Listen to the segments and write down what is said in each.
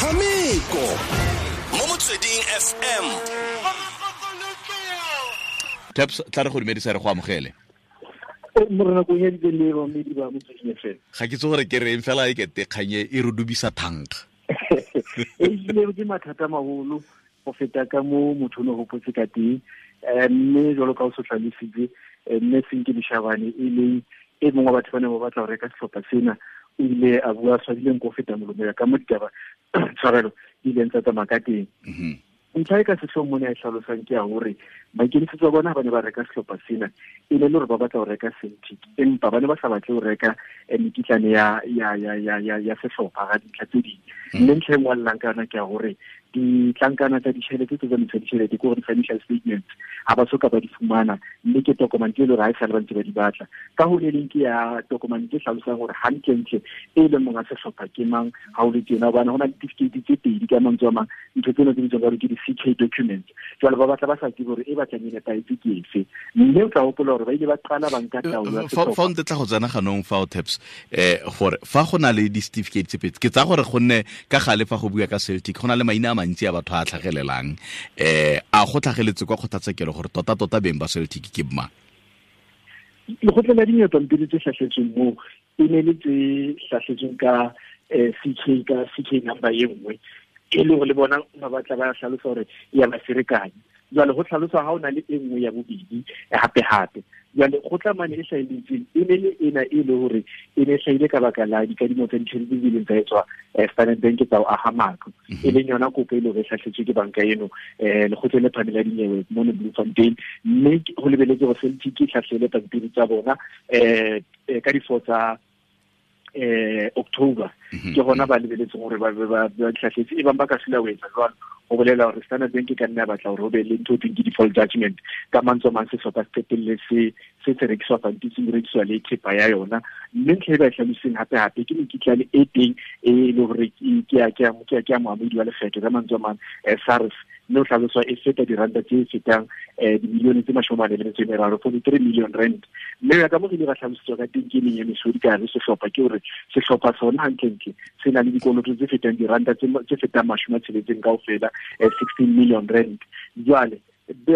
Metshameko mo Motsweding FM. Taps, tla re go dumedisa, re go amogele. Morena ko nyaditse le bamedi ba Motsweding FM. Ga ke tse gore ke reng fela, e kete kganye e re dubisa thankga. E ile ke mathata maholo go feta ka mo motho o ne gopotse ka teng, mme jalo ka o se tlhalositse, mme Senke Leshabane, e leng e mongwe wa batho ba ne ba batla go reka setlhopha sena, o ile a bua tshwadileng ko feta molomo ya ka mo ditaba, tshwarelo, di ileng tsa tsamaya ka teng. Ntlha e ka setlhong mo ne a e tlhalosang ke ya gore maikemisetso a bona ba ne ba reka setlhopha sena e ne le gore ba batla go reka Celtic, empa ba ne ba sa batle go reka mekitlane ya setlhopha ga dintlha tse dingwe. Mme ntlha e nngwe a llang ka yona ke ya gore ditlankana tsa ditšhelete tse tsamaisa ditšhelete, ke gore financial statements, ga ba soka ba di fumana, mme ke tokomane tse e le gore ga e sale ba ntse ba di batla. Ka go le leng ke ya tokomane tse tlhalosang gore gantlentle e leng monga setlhopha ke mang ga o le tjena, hobane go na le certificate tse pedi. Ka mantswe a mang, ntho tseno tse bitswang ka gore ke di-CK documents. Jwale ba batla ba sa tsebe gore e batlang e nepahetse ke efe, mme o tla hopola gore ba ile ba qala ba nka taolo ya Fa sehlopha. O ntetla go tsena ganong fa o, Taps, gore fa go na le di-certificate tse pedi, ke tsaya gore gonne ka gale fa go bua ka Celtic go na le maina a mantsi a batho a tlhagelelang, a go tlhageletse kwa kgotlatshekelo gore tota-tota beng ba Celtic ke mang? Lekgotla la dinyewe, pampiri tse hlahletsweng moo e ne le tse hlahletsweng ka CK, ka CK number e nngwe, e le gore le bona ba batla ba hlalosa gore ya ba ferekanya. Jwale go tlhalosa ga o na le e nngwe ya bobedi hape-hape. Jwale go tla mane e hlahelletseng e ne le ena e le gore e ne e hlahile ka baka la dikadimo tsa ditjhelete tse ileng tsa etswa Standard Bank tsa ho aha matlo, e leng yona kopo e le hore e hlahletswe ke banka eno lekgotleng le phahameng la dinyewe mono Bloemfontein. Mme go lebeletse gore Celtic e hlahlele pampiri tsa bona ka di-4 tsa October. Ke gona ba lebeletseng gore ba hlahletse. E bang ba ka sila ho etsa jwalo, ho bolela hore Standard Bank e ka nna ya batla hore ho be le ntho e thweng ke default judgment. Ka mantswe a mang, sehlopha se qetelle se rekiswa pampitsi, se rekiswa le thepa ya yona. Mme ntlha e ba e hlalositseng hape-hape ke mekitlane e teng e le hore ke ya moamohedi wa lekgetho, ka mantswe a mang, SARS, mme o hlaloswa e feta diranta tse fetang dimilione tse 43, R43 million. Mme ya ka mo re ile ra hlalositswa ka teng ke meng ya mesodi ka hare sehlopha, ke hore sehlopha sona hantlentle se na le dikoloto tse fetang diranta tse fetang 60 kaofela, R16 million. Jwale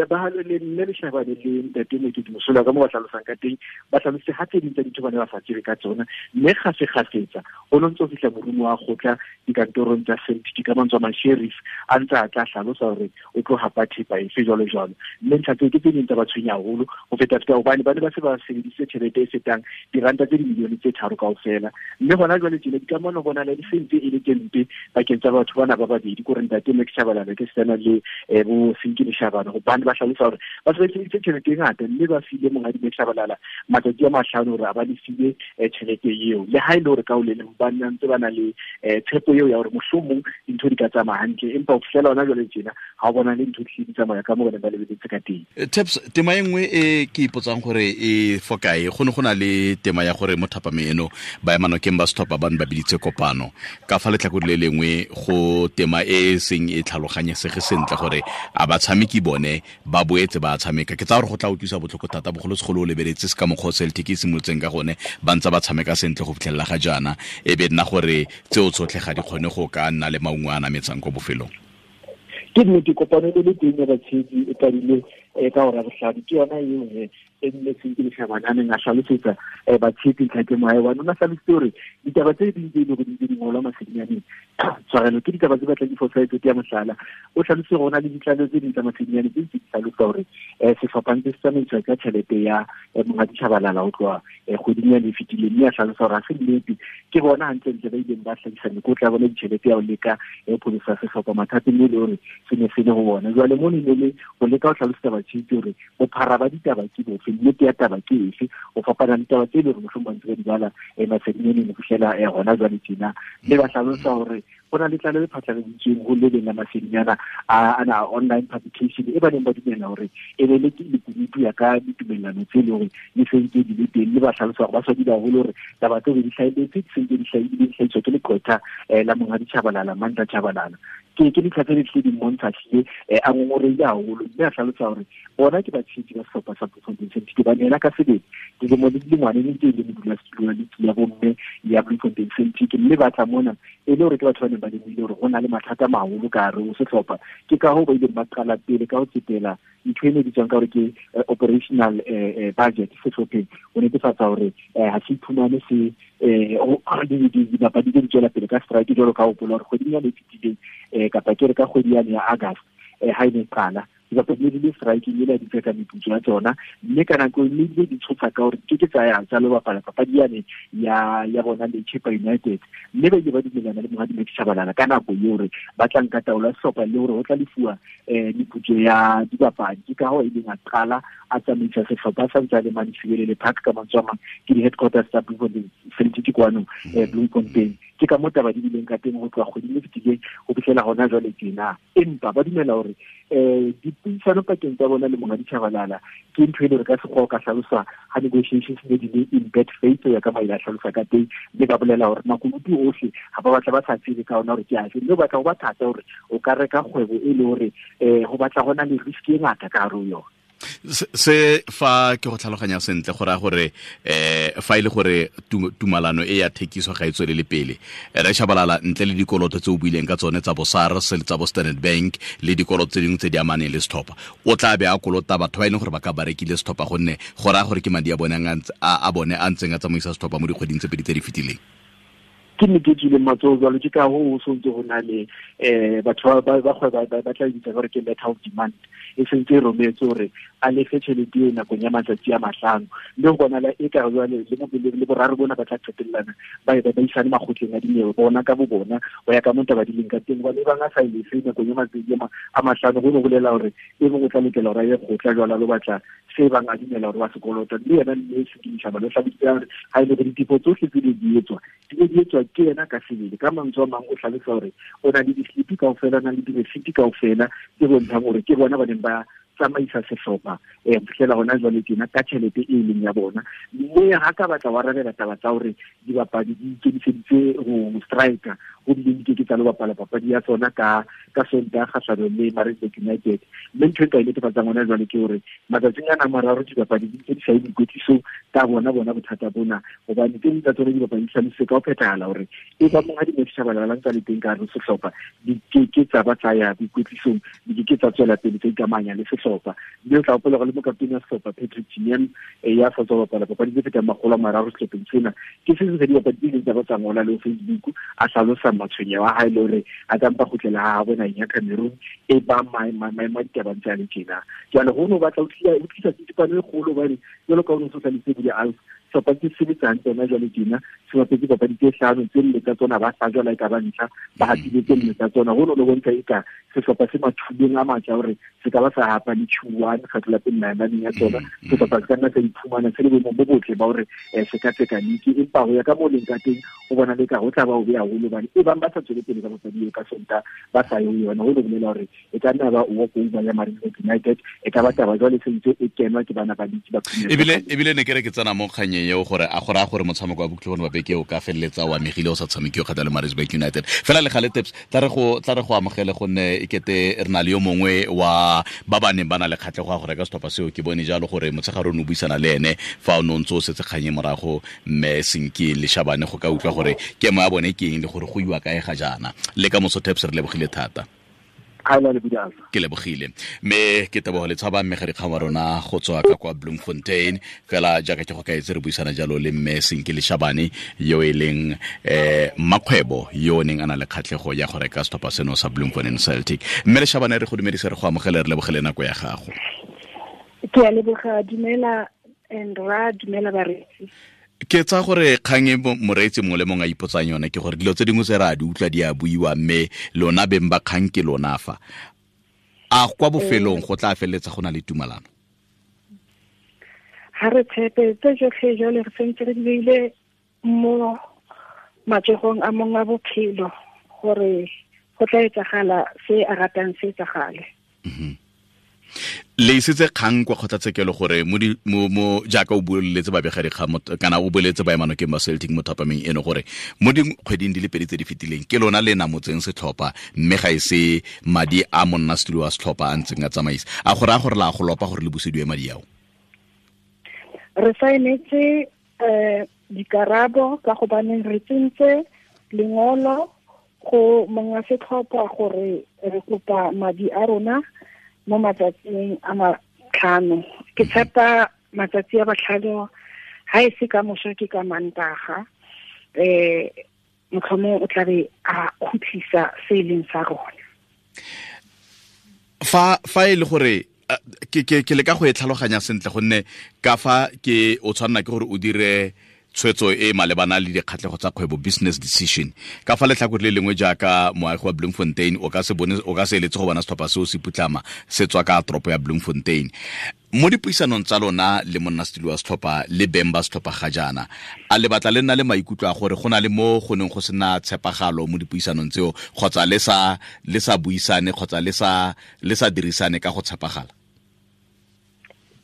ba le mme Leshabane le ntate Mokete Mosola, ka mo ba hlalosang ka teng, ba hlalositse ha tse ding tsa dintho ba ne ba sa tsebe ka tsona, mme kgafekgafetsa go no ntse ho fihla morumo wa kgotla dikantorong tsa Celtic, ka mantswe a mang sheriff a ntse a tla hlalosa hore o tlo hapa thepa efe, jwalo jwalo. Mme ntlha tseo ke tse ding tsa ba tshwenya haholo ho feta feta, hobane ba ne ba se ba sebedisitse tjhelete e fetang diranta tse dimilione tse 3 kaofela. Mme hona jwale tjena dikamano bona di sentse e le tse mpe pakeng tsa batho bana ba babedi, ke hore ntate Max Shabalala ke sena le bo Senke Leshabane, hobane ba hlalosa hore ba se ba sebedisitse tjhelete e ngata, mme ba file monghadi Max Shabalala matsatsi a 5 hore a ba lefile tjhelete eo, le ha e le hore ka ho le leng ba ntse ba na le tshepo eo ya hore mohlomong dintho di ka tsamaya hantle, empa ho fihlela hona jwale tjena ha o bona le ntho di hlile di tsamaya ka moo ba neng ba lebeletse ka teng. Taps, tema e nngwe e ke ipotsang gore e fokae, go ne go na le tema ya gore mo thapameng eno baemanokeng ba setlhopha ba ne ba biditse kopano. Ka fa letlhakore le lengwe go tema e e seng e tlhaloganyesege sentle gore a batshameki bone ba boetse ba tshameka. Ke tsaya gore go tla utlwisa botlhoko thata, bogolosegolo o lebeletse se ka mokgwa o Celtic e simolotseng ka gone, ba ntse ba tshameka sentle go fitlhelela ga jaana, e be nna gore tseo tsotlhe ga di kgone go ka nna le maungo a nametsang ko bofelong. Ke nnete, kopano e le teng ya batshehetsi e qadile ka hora bohlano. Ke yona eo he e nne Senke Leshabane a neng a hlalosetsa batshehetsi ntlha ke mohae one. O na hlalositse hore ditaba tse ding tse e leng hore di ntse di ngolwa masedinyaneng, tshwarelo, ke ditaba tse batlang di fosahetse. Ke ya mohlala, o hlalositse hore ho na le ditlaleho tse ding tsa masedinyaneng tse ntse di hlalosa hore sehlopha ntse se tsamaiswa ka tjhelete ya monghadi Shabalala ho tloha kgweding ya e fetileng, mme a hlalosa hore ha se nnete. Ke bona hantlentle ba ileng ba hlahisa mekotla ya bona ditjhelete ya ho leka ho pholosa sehlopha mathateng e le hore se ne se le ho bona. Jwale mono e ne le ho leka ho hlalosetsa batshehetsi hore bophara ba ditaba ke bofe, nnete ya taba ke efe, ho fapana le taba tse e leng hore mohlomong ba ntse ba di bala masedinyaneng ho fihlela hona jwale tjena. Mme ba hlalosa hore go na le tlaleho e phatlaladitsweng ho le leng la masedinyana ana online publication e ba neng ba dumela hore e be le lekunutu ya ka ditumellano tse le hore di sentse di le teng. Mme ba hlalosa hore ba swabile haholo hore taba tseo di hlahelletse, di sentse di hlahiswa ke leqwetha la monghadi Chabalala, Mandla Chabalala. Ke dintlha tse di tlile di mmontsha tlile a ngongoreile haholo, mme a hlalosa hore bona ke batshehetsi ba sehlopha sa Bloemfontein Celtic, hobane yena ka sebele dilemo le dilengwane ne ntse e le modulasetulo wa liki ya bomme ya Bloemfontein Celtic, mme ba tla mona e le hore ke batho ba neng ba lemohile hore ho na le mathata a maholo ka hare ho sehlopha. Ke ka hoo ba ileng ba qala pele ka ho tsetela ntho e ne bitswang ka hore ke operational budget sehlopheng, ho netefatsa hore ha se iphumane se dibapadi tse di tswela pele ka strike, jwalo ka hopola hore kgweding yane e fetileng kapa ke re ka kgwedi yane ya August ha e ne qala, dibapadi di le striking e le di tseka meputso ya tsona, mme ka nako e mme di tshosa ka hore ke ke tsa ya tsa lo bapala papadi yane ya bona le Chippa United, mme ba ile ba dumellana le Monghadi Max Tshabalala ka nako eo hore ba tla nka taolo ya sehlopha le hore ho tla lefuwa meputso ya dibapadi. Ke ka hoo e leng a qala a tsamaisa sehlopha sa ntse a le mane Sibelele Park, ka mantswe a mang ke di-headquarters tsa Bloemfontein Celtic kwano Bloemfontein. Ke ka moo taba di bileng ka teng ho tloha kgweding e fetileng ho fihlela hona jwale tjena. Empa ba dumela hore dipuisano pakeng tsa bona le Monghadi Tshabalala ke ntho e le hore ka sekgowa o ka hlalosa ha negotiations ne di le in bad faith, ho ya ka maile a hlalosa ka teng, mme ba bolela hore makunutu ohle ha ba batla ba sa tsebe ka ona hore ke afe, mme o batla ho ba thata hore o ka reka kgwebo e le hore ho batla hona le risk e ngata ka hare ho yona. Se fa ke go tlhaloganya sentle go raya gore fa e le gore tumalano e ya thekiso ga e tswelele pele, re Tshabalala ntle le dikoloto tse o buileng ka tsone tsa bo SARS le tsa bo Standard Bank le dikoloto tse dingwe tse di amaneng le setlhopha, o tla be a kolota batho ba e leng gore ba ka ba rekile setlhopha, gonne go raya gore ke madi a bone a bone a ntseng a tsamaisa setlhopha mo dikgweding tse pedi tse di fetileng. Ke nnete e tswileng matsoho jwalo, ke ka hoo ho sontse ho na le batho ba kgwebo ba tla bitsa hore ke letter of demand, e sentse e rometse hore a lefe tjhelete eo nakong ya matsatsi a 5, mme ho bonala e ka jwale le boraro bona ba tla qetellana ba e ba isane makgotleng a dinyewe bona ka bo bona ho ya ka moo taba di leng ka teng. Hobane ebang a sa e lefe nakong ya matsatsi a 5, ho no bolela hore e mong o tla lokela hore a ye kgotla jwalo a lo batla se bang a dumela hore wa sekoloto, mme yena mme Sekini Tshabalala o hlalositse hore ha e le hore ditefo tsohle tse di etswa di ne di etswa ke yena ka sebele. Ka mantswe a mang o hlalosa hore o na le di-slip kaofela, o na le di-receipt kaofela tse bontshang hore ke bona ba neng ba tsamaisa sehlopha ho fihlela hona jwale tjena ka tjhelete e leng ya bona. Mme ha ka batla wa arabela taba tsa hore dibapadi di ikemiseditse ho striker, ho bile di keke tsa lo bapala papadi ya tsona ka Sontaha kgahlanong le Maritzburg United. Mme ntho e nka e netefatsang hona jwale ke hore matsatsing ana a mararo dibapadi di ntse di sa ye boikwetlisong ka bona bothata bona, hobane tse ding tsa tsona dibapadi di hlalositse ka ho phethahala hore e ba Monghadi Max Tshabalala ntse a le teng ka hare ho sehlopha, di keke tsa ba tsa ya boikwetlisong, di keke tsa tswela pele tsa ikamanya le sehlopha. Mme o tla hopola hore le mokaptene wa sehlopha Patrick Tignyemb ya sa tswa bapala papadi tse fetang 300 sehlopheng sena, ke se seng sa dibapadi tse ileng tsa ba tsa ngola le ho Facebook a hlalosa matshwenyeho a hae le hore a ka mpa kgutlela ha habo naheng ya Cameroon e ba maemo a ditaba ntse a le tjena. Jwale ho no batla ho tlisa tsitsipano e kgolo, hobane jwalo ka ho no so hlalositse Budi Alf, sehlopha se sebetsa hantle hona jwale tjena, se bapetse papadi tse 5, tse 4 tsa tsona ba hlajwa le ka ba ntlha, ba hapile tse 4 tsa tsona. Ho no bontsha eka sehlopha se mathuleng a matla hore se ka ba sa hapa le Q1 kgetlo la pele naheng ya tsona. Sehlopha se ka nna sa iphumana se le boemong bo botle ba hore se ka tseka liki, empa ho ya ka moo leng ka teng ho bona le ka ho tla ba ho beha haholo, hobane e bang ba sa tswele pele ka papadi eo ka Sontaha ba sa ye ho yona, ho no bolela hore e ka nna ba walk over ya Maritzburg United, e ka ba taba jwale se ntse e kenwa ke bana ba liki ba Premier League. Ebile ne ke re ke tsena mo kganyeng eo gore a gore a gore motshameko wa Bokhutlo ba beke o ka feleletsa o amegile o sa tshamekiwe kgotsa le Maritzburg United. Fela le gale Taps, tla re go amogele gonne e kete re na le yo mongwe wa ba ba neng ba na le kgatlhego ya go reka setlhopha seo. Ke bone jalo gore motshegare o ne o buisana le ene fa o ne o ntse o setse kganye morago mme Senki le Shabane go ka utlwa gore kemo ya bone ke eng le gore go iwa kae ga jaana. Le ka moso Taps, re lebogile thata. Ke lebogile mme ke tebogo le tshaba mme ga wa rona go tswa ka kwa Bloemfontein. Fela jaaka ke go kaetse re buisana jalo le mme Senki le Shabane yo e leng mmakgwebo yo o neng a na le kgatlhego ya go reka setlhopha seno sa Bloemfontein Celtic. Mme le Shabane re go dumedise, re go amogele, re lebogele nako ya gago. Ke a leboga, dumela and ra dumela bareetsi. Ke tsa gore kgang e moreetsi mongwe le mongwe a ipotsang yone ke gore dilo tse dingwe tse re a di utlwa di a buiwa, mme lona beng ba kgang ke lona fa. A kwa bofelong go tla feleletsa go na le tumalano? Ha re tshepe tse tsotlhe jwale re sentse re di beile mo matsogong a mongwe a bophelo gore go tla etsagala se a ratang se etsagale. Le isitse kgang kwa kgotlatshekelo gore mo jaaka o boleletse babegadikgang kana o boleletse baemanokeng ba Celtic mo thapameng eno gore mo dikgweding di le pedi tse di fetileng ke lona le namotseng setlhopha, mme ga e se madi a monnasetulo wa setlhopha a ntseng a tsamaisa. A go raya gore la go lopa gore le busediwe madi ao? Re saenetse dikarabo ka gobaneng re tsentse lengolo go monga setlhopha gore re kopa madi a rona mo matsatsing a 5. Ke tshepa matsatsi a 5 ha e se ka moso ke ka Mantaga, motlhomong o tla be a khutlisa se e leng sa rona. Fa e le gore ke leka go e tlhaloganya sentle, gonne ka fa ke o tshwanna ke gore o dire tshwetso e malebana le dikgatlhego tsa kgwebo, business decision. Ka fa letlhakore le lengwe jaaka moagi wa Bloemfontein, o ka se bone, o ka se eletse go bona setlhopha seo se putlama se tswa ka toropo ya Bloemfontein. Mo dipuisanong tsa lona le monnasetulo wa setlhopha le beng ba setlhopha ga jaana, a le batla le nna le maikutlo a gore go na le mo go neng go sena tshepagalo mo dipuisanong tseo, kgotsa le sa buisane, kgotsa le sa dirisane ka go tshepagala?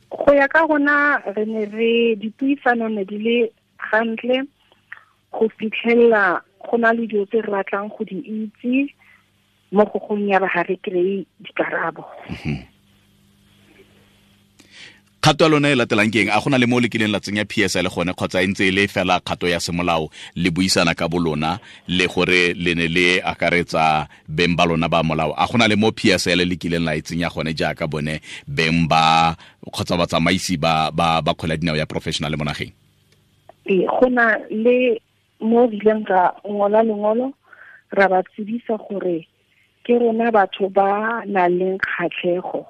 Go ya ka rona re ne re dipuisano ne di le gantle go fitlhella go na le dilo tse re batlang go di itse mo go gong ya ba ga re kry-e dikarabo. Kgato ya lona e latelang ke eng? A go na le mo le kileng la tsenya PSL gone, kgotsa e ntse e le fela kgato ya semolao le buisana ka bolona le gore le ne le akaretsa beng ba lona ba molao? A go na le mo PSL le kileng la e tsenya gone jaaka bone beng ba kgotsa batsamaisi ba kgwele ya dinao ya professional mo nageng? Go na le mo re ileng ra ngola lengolo ra ba tsebisa gore ke rona batho ba nang le kgatlhego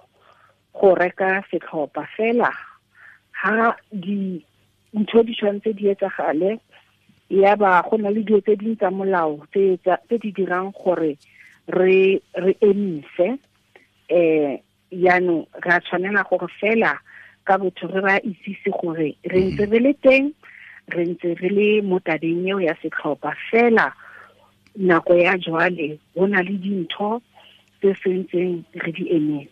go reka setlhopha, fela ha dintho di tshwanetse di etsagale, ya ba go na le dilo tse dingwe tsa molao tse di dirang gore re emise. Jaanong re a tshwanela gore fela ka botho re ba itsise gore re ntse re le teng, re ntse re le mo tabeng eo ya setlhopha, fela nako ya jwale go na le dintho tse sentseng re di emetse.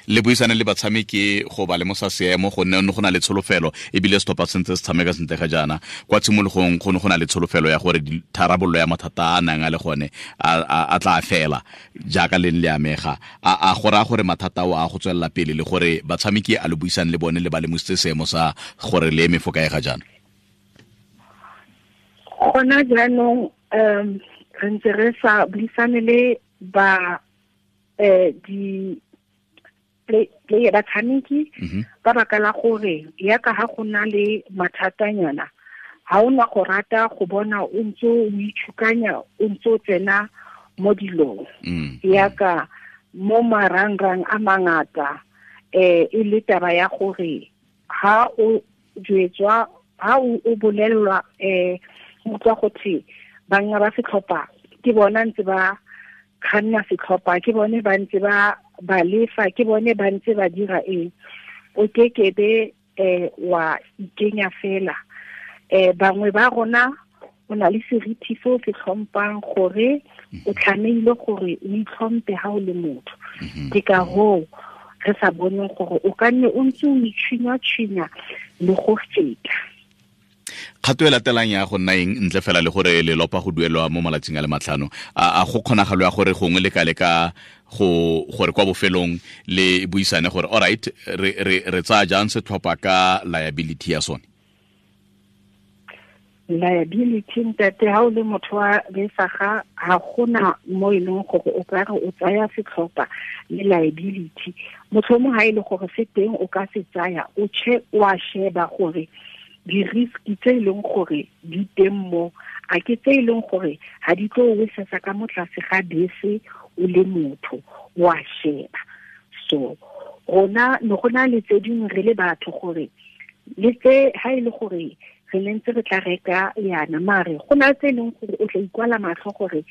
Le buisane le batshameki go ba lemosa seemo, gonne go na le tsholofelo ebile setlhopha sentse se tshameka sentle ga jaana. Kwa tshimologong go ne go na le tsholofelo ya gore tharabololo ya mathata a nang a le gone a tla fela jaaka le le amega. A go raya gore mathata ao a go tswelela pele, le gore batshameki a le buisane le bone le ba lemositse seemo sa gore le eme fo kae ga jaana? Gona jaanong re ntse re sa buisane le ba di player batshameki ka baka la gore yaka ha go na le mathatanyana ha o na go rata go bona o ntse o itshukanya, o ntse o tsena mo dilong yaka mo marangrang a mangata. E le taba ya gore ha o jwetswa, ha o bolellwa utlwa go thwe banga ba setlhopha ke bona ntse ba kganna setlhopha, ke bone ba ntse ba lefa, ke bone ba ntse ba dira eng, o kekebe wa ikenya fela. Bangwe ba rona o na le seriti se o se tlhompang gore o tlamehile gore o itlhompe ha o le motho. Ke ka hoo re sa boneng gore o ka nne o ntse o itšhinya-tšhinya le go feta. Kgato e latelang ya go nna eng ntle fela le gore le lopa go duelwa mo malatsing a le 5? A go kgonagalo ya gore gongwe le ka leka go gore kwa bofelong le buisane gore all right, re tsaya jang setlhopha ka liability ya sone? Liability, ntate, ha o le motho wa besaga ga gona mo e leng gore o ka re o tsaya setlhopha le liability. Motlhomong ha e le gore se teng o ka se tsaya, o che wa sheba gore di-risk tse e leng gore di teng mo, a ke tse e leng gore ga di tlo o wesesa ka mo tlase ga bese o le motho, wa sheba. So rona ne go na le tse dingwe re le batho gore le tse ha e le gore re ne ntse re tla reka yana, mare go na tse e leng gore o tla ikwala matlho gore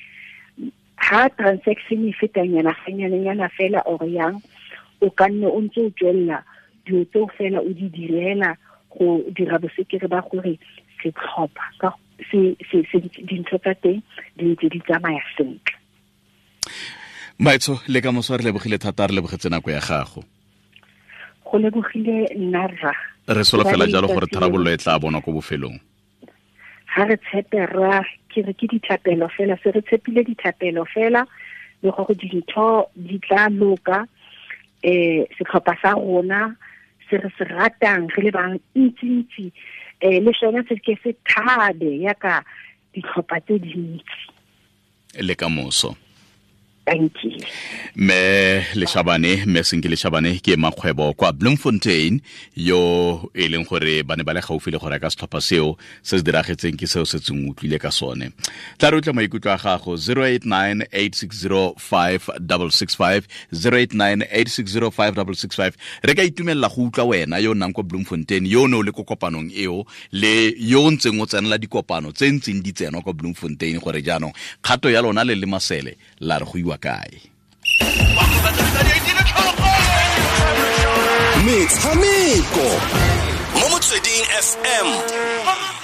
ha transaction e fetanyana ganyanenyana fela or yang, o ka nne o ntse o tswelela dilo tseo fela o di direla go dira bosekere ba gore setlhopha ka se dintho tsa teng di ntse di tsamaya sentle. Maitso, le ka moso re lebogile thata, re lebogetse nako ya gago. Go lebogile nna rra. Re solofela jalo gore tharabololo e tla bonwa ko bofelong. Ga re tshepe rra, ke re ke dithapelo fela, se re tshepile dithapelo fela le gore dintho di tla loka. Setlhopha sa rona se re se ratang re le bang ntsi-ntsi, le sone se ke se thabe yaka ditlhopha tse dintsi. Le ka moso. Thank you. Mme Leshabane, mme Senki Leshabane ke makgwebo kwa Bloemfontein, yo e leng gore ba ne ba le gaufi le go reka setlhopha seo se se diragetseng ke seo se tseng utlwile ka sone. Tla re utlwa maikutlo a gago 089 860 5665, 089 860 5665. Re ka itumelela go utlwa wena yo o nnang kwa Bloemfontein, yo o ne o le ko kopanong eo, le yo o ntseng o tsenela dikopano tse ntseng di tsenwa kwa Bloemfontein, gore jaanong kgato ya lona le le masele la re go iwa kae. Metshameko mo Motsweding FM.